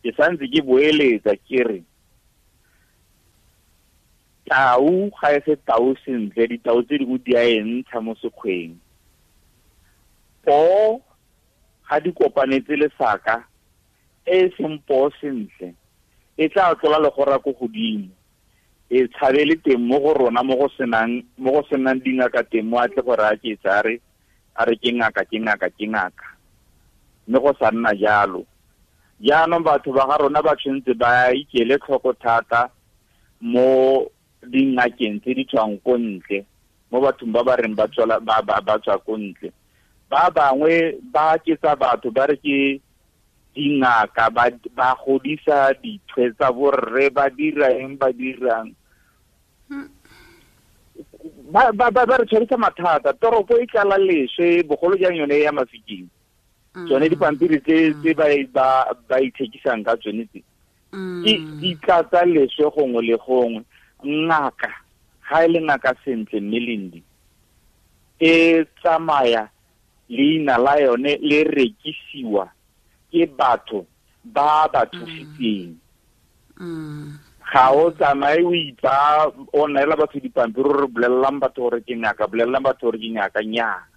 ke santse ke boeletsa ke re tau ga e se tau sentle, ditau tse dingwe di a e ntsha mo sekgweng. Poo ga di kopanetse lesaka e seng poo sentle e tla tlola legora ko godimo, e tshabele teng mo go rona mo go senang dingaka teng, mo a tle gore a ke tsa re a re ke ngaka ke ngaka ke ngaka, mme go sa nna jalo. Jaanong batho ba ga rona ba tshwanetse ba ikele tlhoko thata mo dingakeng tse di tswang ko ntle, mo bathong ba ba reng ba tswa ko ntle. Ba bangwe ba ketsa batho ba re ke dingaka, ba godisa dithwe tsa borre, ba dira eng ba dirang, ba re tshwarisa mathata. Toropo e tlala leswe, bogolo jang yone ya Mafikeng. Tsone dipampiri tse ba ithekisang ka tsone tse ke di tlatsa leswe gongwe le gongwe. Ngaka ga e le ngaka sentle mme Lendi, e tsamaya leina la yone le rekisiwa ke batho ba ba thusitseng. Ga o tsamaye o itsa o neela batho dipampiri re bolelelang batho gore ke ngaka, bolelelang batho gore ke ngaka. Nnyaa,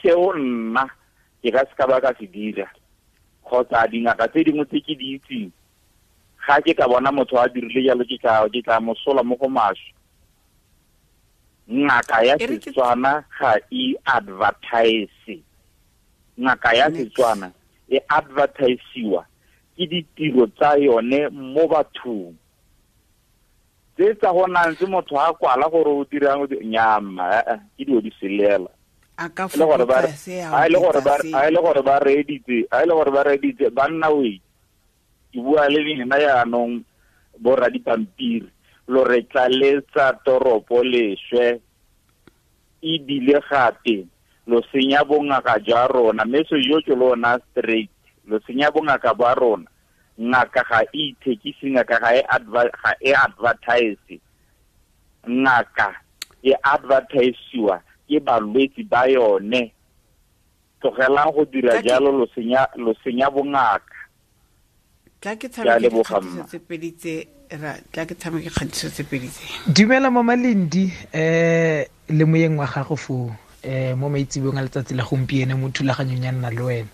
seo nna ke ka se ka ba ka se dira, kgotsa dingaka tse dingwe tse ke di itseng, ga ke ka bona motho a dirile jalo ke tla mosola mo go maswe. Ngaka ya Setswana ga e advertise. Ngaka ya Setswana e advertisiwa ke ditiro tsa yone mo bathong. Tse tsa go nang tse motho a kwala gore o dirang nyama, ke dio di selela. A ka fokotsa se a ile gore ba reeditse banna we. Ke bua le lena yaanong bo radipampiri, lo re tlaletsa toropo leswe, ebile gape lo senya bongaka jwa rona. Mme se yo ke lona straight, lo senya bongaka ba rona. Ngaka ga e ithekise, ngaka ga e advertise. Ngaka e advertisiwa ke balwetsi ba yone. Tlogelang go dira jalo, lo senya bongaka. Tla ke tshameke dikgatiso tse pedi tse tla ke tshameke kgatiso tse pedi tse. Dumela Mama Lendi, le moyeng wa gago foo, mo maitsebong a letsatsi la gompieno mo thulaganyong ya nna le wena.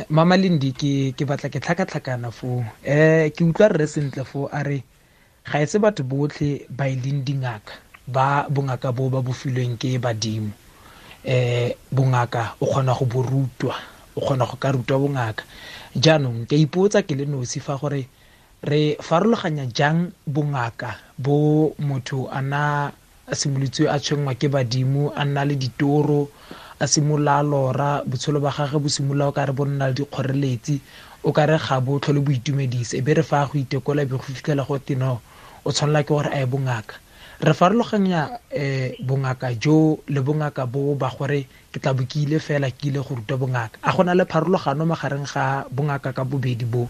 Mama Lendi, ke batla ke tlhakatlhakana foo. Ke utlwa rre sentle foo a re ga e se batho botlhe ba e leng dingaka, ba bongaka bo ba bo filweng ke badimo. Bongaka o kgona go bo rutwa, o kgona go ka rutwa bongaka. Jaanong ke ipotsa ke le nosi fa gore re farologanya jang bongaka bo motho a na a simolotswe a tshwenngwa ke badimo, a nna le ditoro, a simolola a lora, botshelo ba gagwe bo simolola o ka re bo nna le dikgoreletsi, o ka re ga bo tlhole bo itumedise, e be re fa go itekola be go fitlhela go te no o tshwanela ke gore a ye bongaka. Re farologanya bongaka jo le bongaka bo ba gore ke tla bo ke ile fela ke ile go ruta bongaka. A gona le pharologano magareng ga bongaka ka bobedi bo,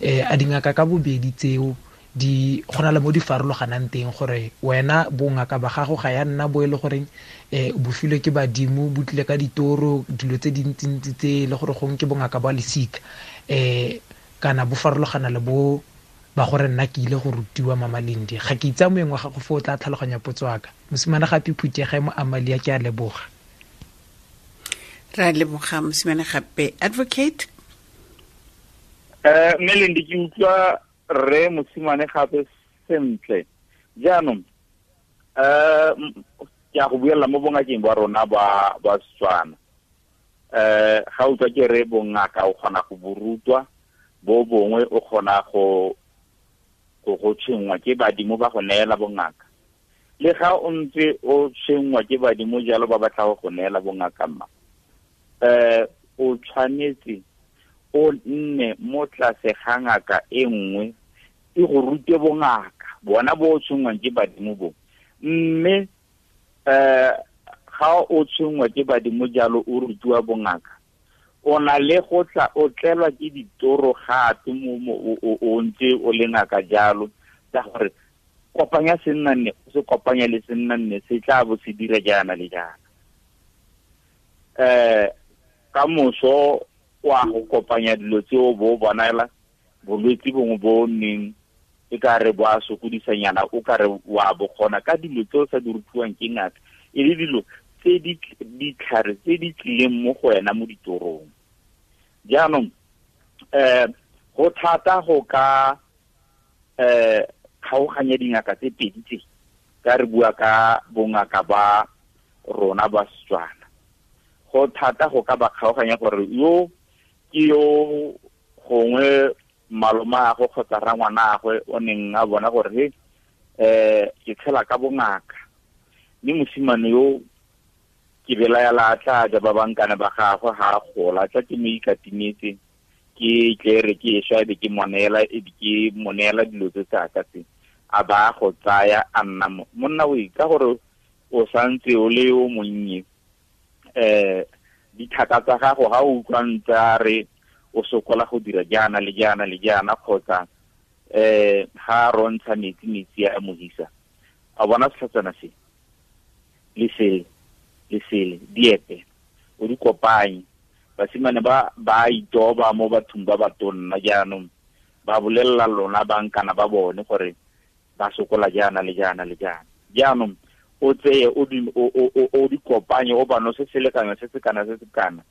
a dingaka ka bobedi tseo di gona le mo di farologanang teng, gore wena bongaka ba gago ga ya nna bo e le goreng bo filwe ke badimo, bo tlile ka ditoro, dilo tse dintsintsi tse le gore gongwe ke bongaka ba lesika, kana bo farologana le bo ba gore nna ke ile go rutiwa. Mama Lendi, ga ke itsa moeng wa gago fo o tla tlhaloganya potso ya ka. Mosimane gape phuthege mo Amalia, ke a leboga. Ra leboga mosimane gape. Advocate Mme Lendi, ke utlwa rre mosimane gape sentle. Jaanong ke a go buelela mo bongakeng ba rona ba Setswana. Ga utlwa ke re bongaka o kgona go bo rutwa, bo bongwe o kgona go tshwenngwa ke badimo ba go neela bongaka. Le ga o ntse o tshwenngwa ke badimo jalo ba batla go neela bongaka mma, o tshwanetse o nne mo tlase ga ngaka e nngwe e go rute bongaka bona bo o tshwenngwang ke badimo bo. Mme ga o tshwenngwa ke badimo jalo o rutiwa bongaka, o na le go tla o tlelwa ke ditoro gape o ntse o le ngaka jalo, tsa gore kopanya sennanne o se kopanya le sennanne se tla bo se dira jaana le jaana. Ka moso wa go kopanya dilo tseo bo bonela bolwetse bongwe bo nneng e ka re bo a sokodisanyana, o ka re wa bo kgona ka dilo tseo sa di rutiwang ke ngaka, e le dilo tse di ditlhare tse di tlileng mo go wena mo ditorong. Jaanong go thata go ka kgaoganya dingaka tse pedi tse, ka re bua ka bongaka ba rona ba Setswana. Go thata go ka ba kgaoganya gore yo ke yo gongwe malomagwe kgotsa rangwanagwe o neng a bona gore he ke tshela ka bongaka, mme mosimane yo ke belaela a tla ja ba bankane ba gagwe ga a gola, tla ke mo ikatimetse ke tle re ke e swa e be ke mo neela, e be ke mo neela dilo tse tsaka tse, a ba go tsaya a nna monna o ka gore o santse o le yo monnye. Dithaka tsa gago ga o utlwa ntse a re o sokola go dira jaana le jaana le jaana, kgotsa ga rontsha metsi metsi a mohisa, a bona setlhatsana se le sele le sele diepe o di kopanye. Basimane ba itoba mo bathong ba ba tonna jaanong, ba bolelela lona bankana ba bone gore ba sokola jaana le jaana le jaana. Jaanong o tseye o di kopanye, o ba nose selekanyo se se kana se se kana,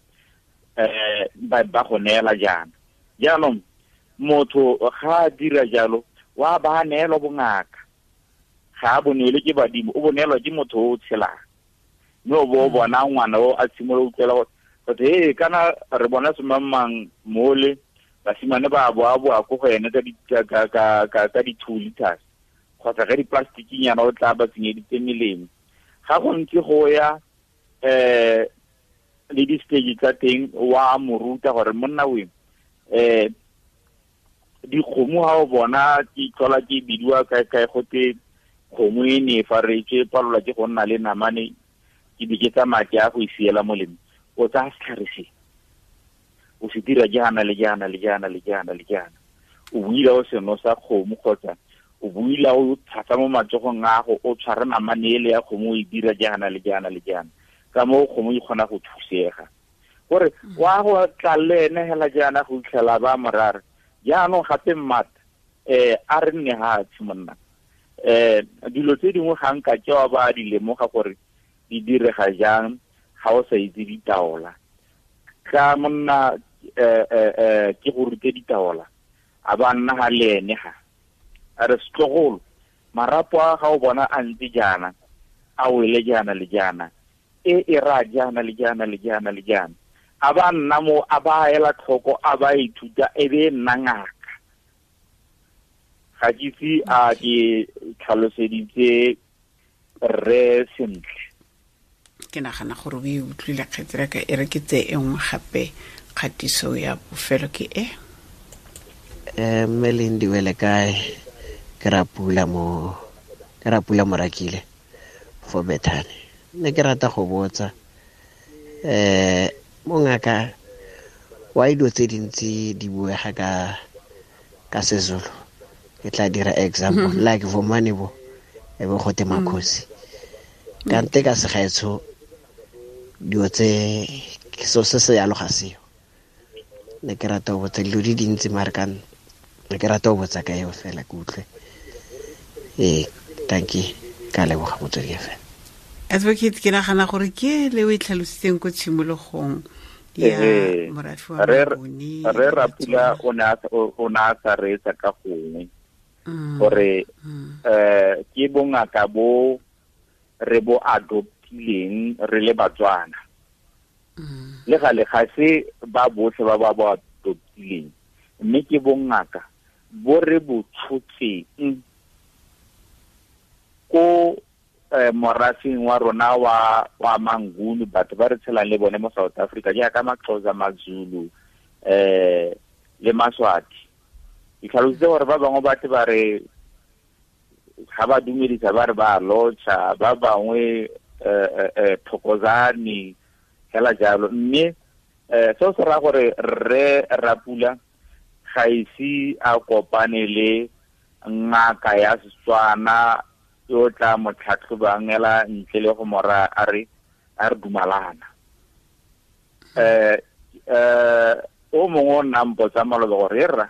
ba go neela jaana. Jaanong motho ga a dira jalo wa ba neelwa bongaka, ga a bonelwe ke badimo, o bonelwa ke motho o tshelang. Mme o bo bona ngwana o a tshimolola utlwela gore he kana re bona semangmang mole, basimane ba boa ko go ene ka di-2 liters kgotsa ka di-plastikinyana o tla ba tsenyeditse melemo. Ga go ntse go ya le di-stage tsa teng, wa mo ruta gore monna we dikgomo ga o bona ke tlhola ke bidiwa kae kae gote kgomo e ne e faretswe palelwa ke go nna le namane, ke be ke tsamaya ke ya go e siela molemo. O tsaya setlhare se o se dira jaana le jaana le jaana le jaana le jaana, o buila o seno sa kgomo kgotsa o buila o tshasa mo matsogong a go o tshware namane ele ya kgomo o e dira jaana le jaana le jaana, ka moo kgomo e kgona go thusega. Gore wa go tla le ene hela jaana go itlhela ba morare. Jaanong gape mmata a re nne hatshe monna, dilo tse dingwe ga nka ke wa ba di lemoga gore di direga jang ga o sa itse ditaola. Ka monna ke go rute ditaola, a ba nna ga le ene ga a re setlogolo marapo a ga o bona a ntse jaana a wele jaana le jaana, e ra jaana le jaana le jaana le jaana, a ba nna mo a ba ela tlhoko a ba ithuta e be nna ngaka. Ga ke itse a ke tlhaloseditse rre sentle. Ke nagana gore o e utlwile kgetsela ka e re ke tse e nngwe gape kgatiso ya bofelo ke e. Mme Lindiwe le kae? Ke Rapula Morakile fo Bethane. Ne ke rata go botsa mongaka wa dilo tse dintsi di buega ka Sezulu. Ke tla dira example like Vomane bo e bo gote Makhosi. Kante ka segaetsho dilo tse so se se yalo ga seo. Ne ke rata go botsa dilo di dintsi mare ka ne ke rata go botsa ka eo fela ke utlwe. Thank you, ka leboga motswedi fela. Advocate, ke nagana gore ke le o e tlhalositseng ko tshimologong ya morafe wa Mabone. Re Rapula o ne a sa reetsa ka gongwe gore ke bongaka bo re bo adoptileng re le Batswana. Le gale ga se ba botlhe ba ba bo adoptileng, mme ke bongaka bo re bo tshotseng ko morafeng wa rona wa Manguni, batho ba re tshelang le bone mo South Africa jaaka Maxhosa, Mazulu le Maswati. Ke tlhalositse gore ba bangwe ba tle ba re ga ba dumedisa ba re ba lotšha, ba bangwe thokozane hela jalo. Mme seo se raya gore rre Rapula ga ise a kopane le ngaka ya Setswana yo tla mo tlhatlhobang ela ntle le go mora a re dumalana. O mongwe o nna mpotsa maloba gore rra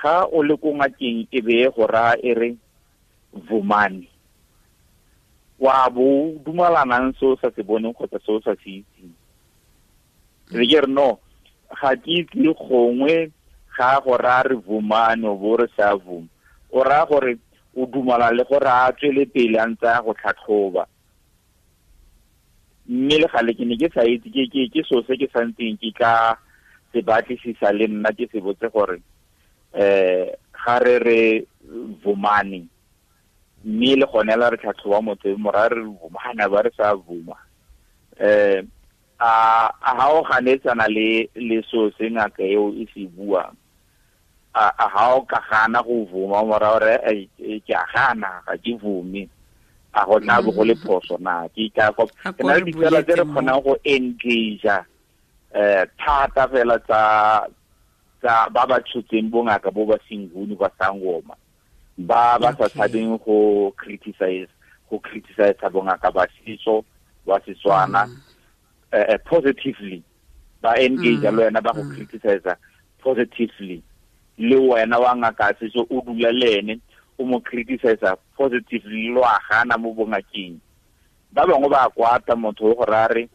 ga o le ko ngakeng e be go raya e re vumani, wa bo dumalanang se o sa se boneng kgotsa se o sa se itseng. Re ke re no, ga ke itse gongwe ga go raya re vumani o bo re sa vuma, o raya gore o dumala le gore a tswele pele a ntse a go tlhatlhoba. Mme le gale ke ne ke sa itse ke seo se ke santseng ke ka se batlisisa le nna ke se botse gore ga re re vumani, mme le gone la re tlhatlhoba motho mora re vumana ba re sa vuma. A ha o ganetsana le seo se ngaka eo e se buang, a ha o ka gana go vuma mora gore ke a gana ga ke vume, a go tla bo go le phoso na? Ke ka ke na le ditsela tse re kgonang go engage thata fela tsa ba ba tshotseng bongaka bo ba Senguni ba Sangoma, ba ba sa tshabeng go criticize bongaka ba setso ba Setswana positively, ba engage le wena ba go criticize positively, le wena wa ngaka setso o dula le ene o mo criticize positively, lo a gana mo bongakeng. Ba bangwe ba kwata motho o go raya re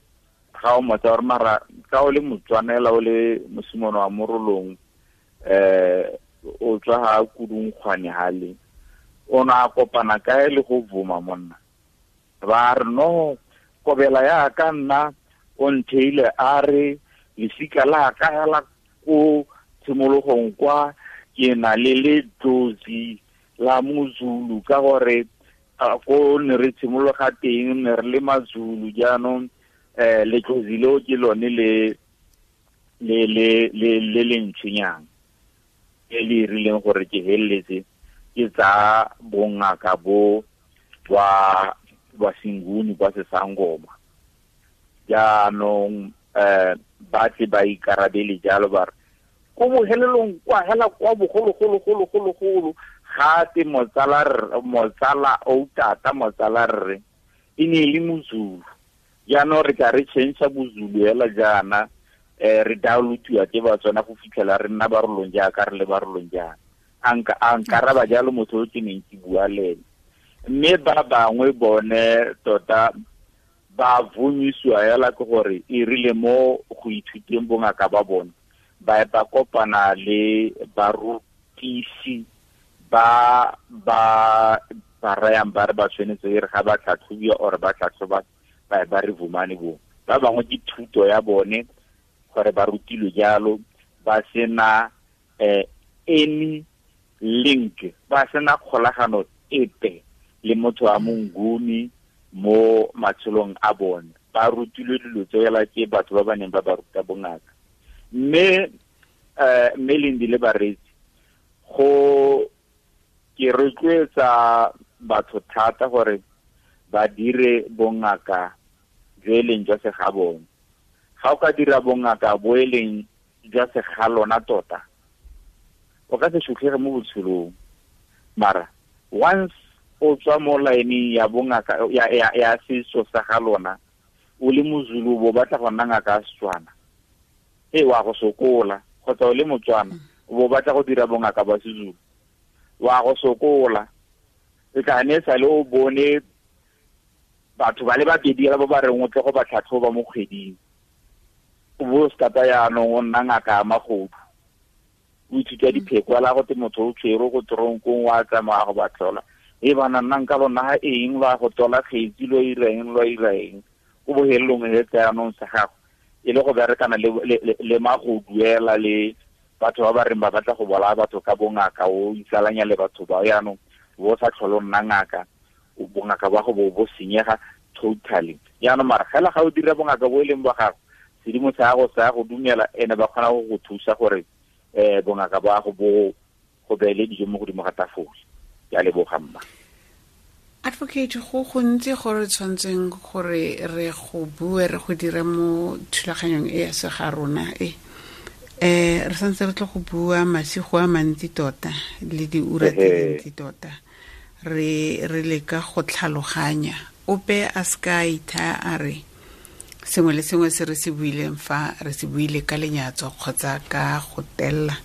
ga o motsa gore mara ka o le Motswanela o le mosimane wa Morolong o tswa ga Kudungkgwane hale, o ne a kopana kae le go vuma monna? Ba re no, kobela ya ka nna o ntheile a re lesika la ka hela ko tshimologong kwa ke na le letlozi la Mozulu, ka gore ko ne re tshimologa teng ne re le Mazulu, jaanong letlozi leo ke lone le le le le le le ntshwenyang e le rileng gore ke heleletse ke tsa bongaka bo ba Senguni ba Sesangoma. Jaanong ba tle ba ikarabele jalo ba re ko bohelelong kwa hela kwa bogologologologologolo ga te motsala o tata motsala rre e ne e le Mozulu. Jaanong re tla re change Bozulu hela jaana, re downloadiwa ke Batswana go fitlhela re nna Barolong jaaka re le Barolong jaana. A nkaraba jalo motho o ke neng ke bua le ene. Mme ba bangwe bone tota ba vumisiwa hela ke gore e rile mo go ithuteng bongaka ba bone ba ba kopana le barutisi ba ba ba rayang ba re ba tshwanetse e re ga ba tlhatlhobiwa or ba tlhatlhoba ba re vumane bo. Ba bangwe ke thuto ya bone gore ba rutilwe jalo, ba sena any link, ba sena kgolagano epe le motho wa Monguni mo matshelong a bone. Ba rutilwe dilo tseo hela ke batho ba ba neng ba ba ruta bongaka. Mme Lindi le bareetsi, go ke rotloetsa batho thata gore ba dire bongaka jo e leng jwa segabone. Ga o ka dira bongaka bo e leng jwa segalona tota, o ka se sutlhege mo botshelong. Mara once o tswa mo line ya bongaka ya setso sa ga lona, o le Mozulu bo batla go nna ngaka ya Setswana, e wa go sokola. Kgotsa o le Motswana o bo batla go dira bongaka ba Sezulu, wa go sokola. E tla ne sale o bone batho ba le babedi ba ba reng o tle go ba tlhatlhoba mo kgweding, o bo stata yaanong o nna ngaka ya magodu, o ithuta dipheko la go te motho o tshwere go toronkong wa tsamaya go ba tlhola, e bana nna nka lona ga eng lwa go tola kgetsi lo ireng lo ireng, o bohelelong e tsa yaanong sa gago e le go berekana le magoduela le batho ba ba reng ba batla go bolaya batho ka bongaka, o itsalanya le batho ba yaanong bo sa tlhole o nna ngaka, Bongaka ba go bo senyega totally. Jaanong mara fela ga o dira bongaka bo e leng ba gago, sedimo sa gago sa go dumela, ene ba kgona go go thusa gore bongaka ba go bo go beele dijo mo godimo ga tafole. Ke a leboga mma. Advocate, go gontsi gore tshwantseng gore re go bue, re go dire mo thulaganyong e ya sega rona e. Re santse re tlo go bua masigo a mantsi tota le diura tse dintsi tota. Re leka go tlhaloganya. Ope a ska itha a re sengwe le sengwe se re se buileng fa re se buile ka lenyatso kgotsa ka go tella.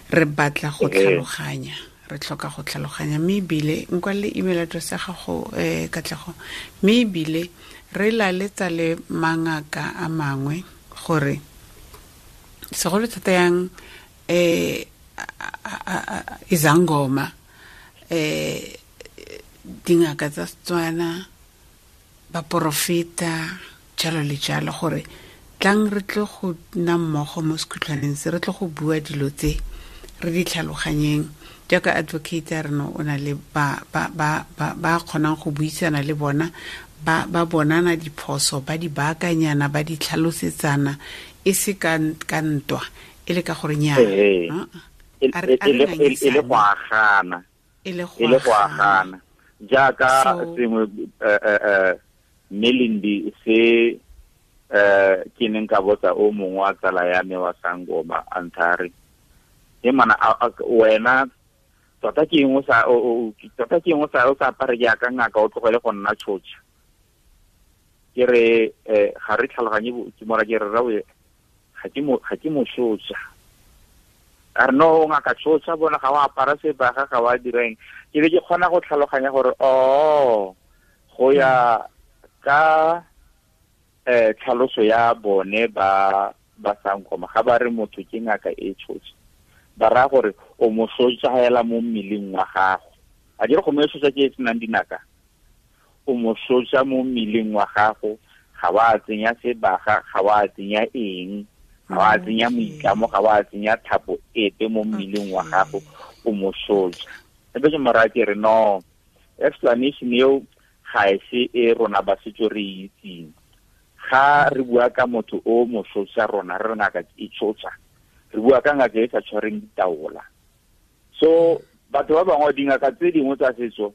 Re batla go tlhaloganya. Re tlhoka go tlhaloganya, mme ebile nkwa le email address ya gago Katlego, mme ebile re laletsa le mangaka a mangwe gore segolo thata yang izangoma dingaka tsa Setswana, baporofeta, jalo le jalo, gore tlang re tle go nna mmogo mo sekhutlhwaneng se, re tle go bua dilo tse re di tlhaloganyeng. Jaaka advocate ya rena o na le ba kgonang go buisana le bona, ba bonana diphoso, ba di baakanyana, ba di tlhalosetsana, e se ka ntwa, e le ka gore nyaa. E le go agana. E le go agana. Jaaka sengwe Melindi se ke neng ka botsa o mongwe wa tsala ya me wa sangoma a nthare, e mana wena tota ke eng o sa apare jaaka ngaka, o tlogele go nna tshotsa. Ke re ga re tlhaloganye, ke mora ke re rawe ga ke mo tshotsa. A re no, ngaka tshotsa bona ga o apara sebaga, ga wa direng. Ke be ke kgona go tlhaloganya gore go ya ka tlhaloso ya bone ba sangoma, ga ba re motho ke ngaka e tshotsa, ba raya gore o mo sotsa hela mo mmeleng wa gago. A dire go mo sotsa ke e senang dinaka, o mo sotsa mo mmeleng wa gago, ga wa tsenya sebaga, ga wa tsenya eng, ga wa tsenya moitlamo, ga wa tsenya thapo epe mo mmeleng wa gago, o mo sotsa. Ebe ke mo raya ke re no, explanation eo ga e se e rona ba setso re itseng. Ga re bua ka motho o mo sotsa, rona re ngaka e tshotsa, re bua ka ngaka e sa tshwareng ditaola. So batho ba bangwe, dingaka tse dingwe tsa setso,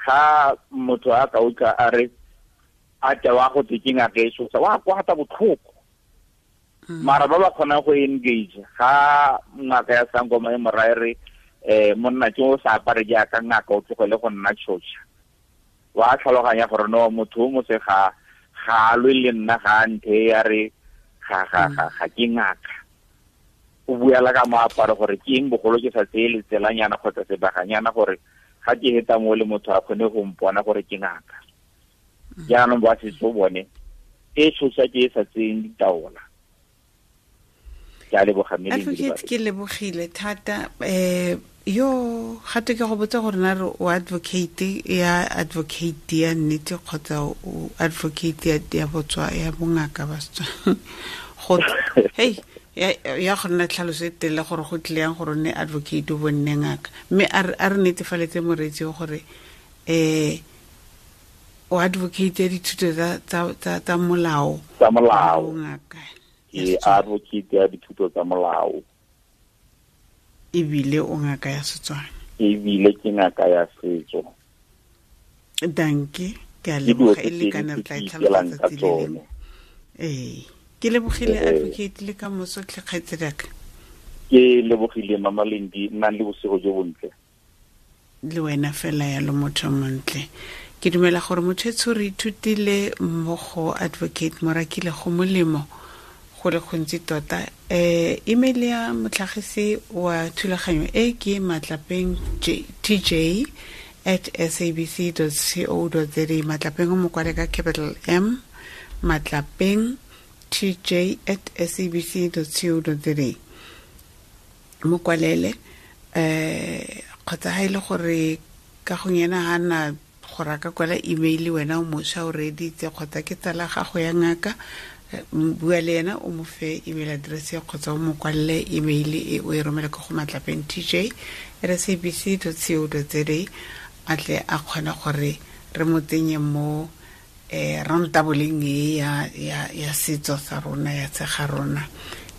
ga motho a ka utlwa a re a tewa go tse ke ngaka e tshotsa, wa kwata botlhoko. Mara ba ba kgonang go engage, ga ngaka ya sangoma e mo raya re monna ke o sa apare jaaka ngaka, o tlogele go nna tshotsa, wa tlhaloganya gore no, motho o mo se ga a lwe le nna, ga a nthe ya re ga ke ngaka. O buela ka moaparo gore ke eng bogolo ke sa tseye letselanyana kgotsa sebaganyana gore ga ke heta mo le motho a kgone go mpona gore ke ngaka. Jaanong ba setso bone e tshosa ke e sa tseyeng ditaola. Ke a leboga mme Advocate, ke lebogile thata. Yo gape ke go botsa gore na re o advocate ya advocate ya nnete kgotsa o advocate ya botswa ya bongaka ba Setswana. Go hey ya go nna tlhaloso e telele gore go tlile yang gore o nne advocate o bo nne ngaka, mme a re netefaletse moreetsi gore o advocate ya dithuto tsa molao. Tsa molao. Ngaka. Ke advocate ya dithuto tsa molao. Ebile o ngaka ya Setswana. Ebile ke ngaka ya setso. Danke, ke a leboga e le kana re tla e tlhalosa tsatsi le lengwe. Ke lebogile advocate le ka moso tlhe kgaitsediaka. Ke lebogile Mama Lendi, nnang le bosigo jo bontle. Le wena fela yalo motho montle. Ke dumela gore motho etsho re ithutile mmogo advocate Morakile go molemo go le gontsi tota. Email ya motlhagisi wa thulaganyo e ke matlapeng tj@sabc.co.za. Matlapeng o mo kwale ka capital M, matlapeng tj@sabc.co.za. Mo kwalele kgotsa ha ile gore ka go yena ha na gore a ka kwala email wena o mošwa o reeditse kgotsa ke tsala gago ya ngaka, bua le ena o mo fe email address kgotsa o mo kwalele email e o e romele ko go matlapeng tj@sabc.co.za, a tle a kgone gore Re mo tsenye mo rantaboleng e ya setso sa rona, ya tshega rona.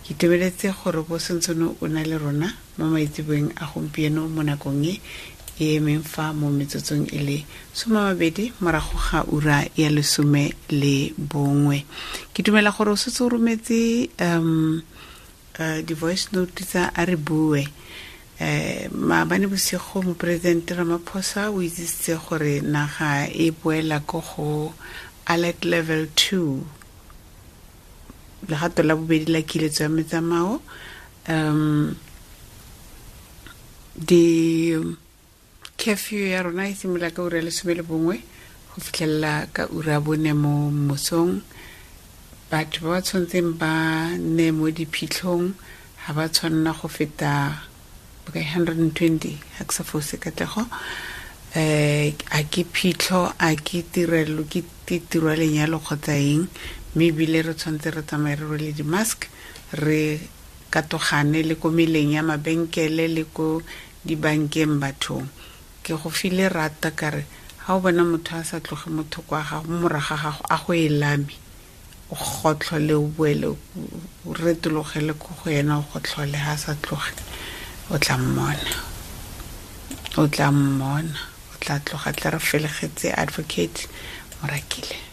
Ke itumeletse gore bo sentsene o na le rona mo maitseboeng a gompieno mo nakong e e emeng fa mo metsotsong e le 20 morago ga ura ya 11. Ke dumela gore o setse o rometse di-voice note tsa a re bue. Maabane bosigo moporesidente Ramaphosa o itsisitse gore naga e boela ko go alert level 2, legato la bobedi la kiletso ya metsamao. Di curfew ya rona e simolola ka ura ya 11 go fitlhelela ka ura 4 mo mosong. Batho ba ba tshwanetseng ba nne mo diphitlhong ga ba tshwanela go feta 120, ga ke sa fose katlego. A ke phitlho, a ke tirelo, ke tiro ya lenyalo kgotsa eng, mme ebile re tshwanetse re tsamaye re rwele di-mask, re katogane le ko meleng ya mabenkele le ko dibankeng bathong. Ke go file rata ka re ga o bona motho a sa tloge motho kwa gago, mo morago ga gago, a go e lame, o gotlhole, o boele, o retologele ko go ena, o gotlhole. Ha a sa tloge, o tla mmona, o tla mmona, o tla tloga. Tla re felegetse Advocate Morakile.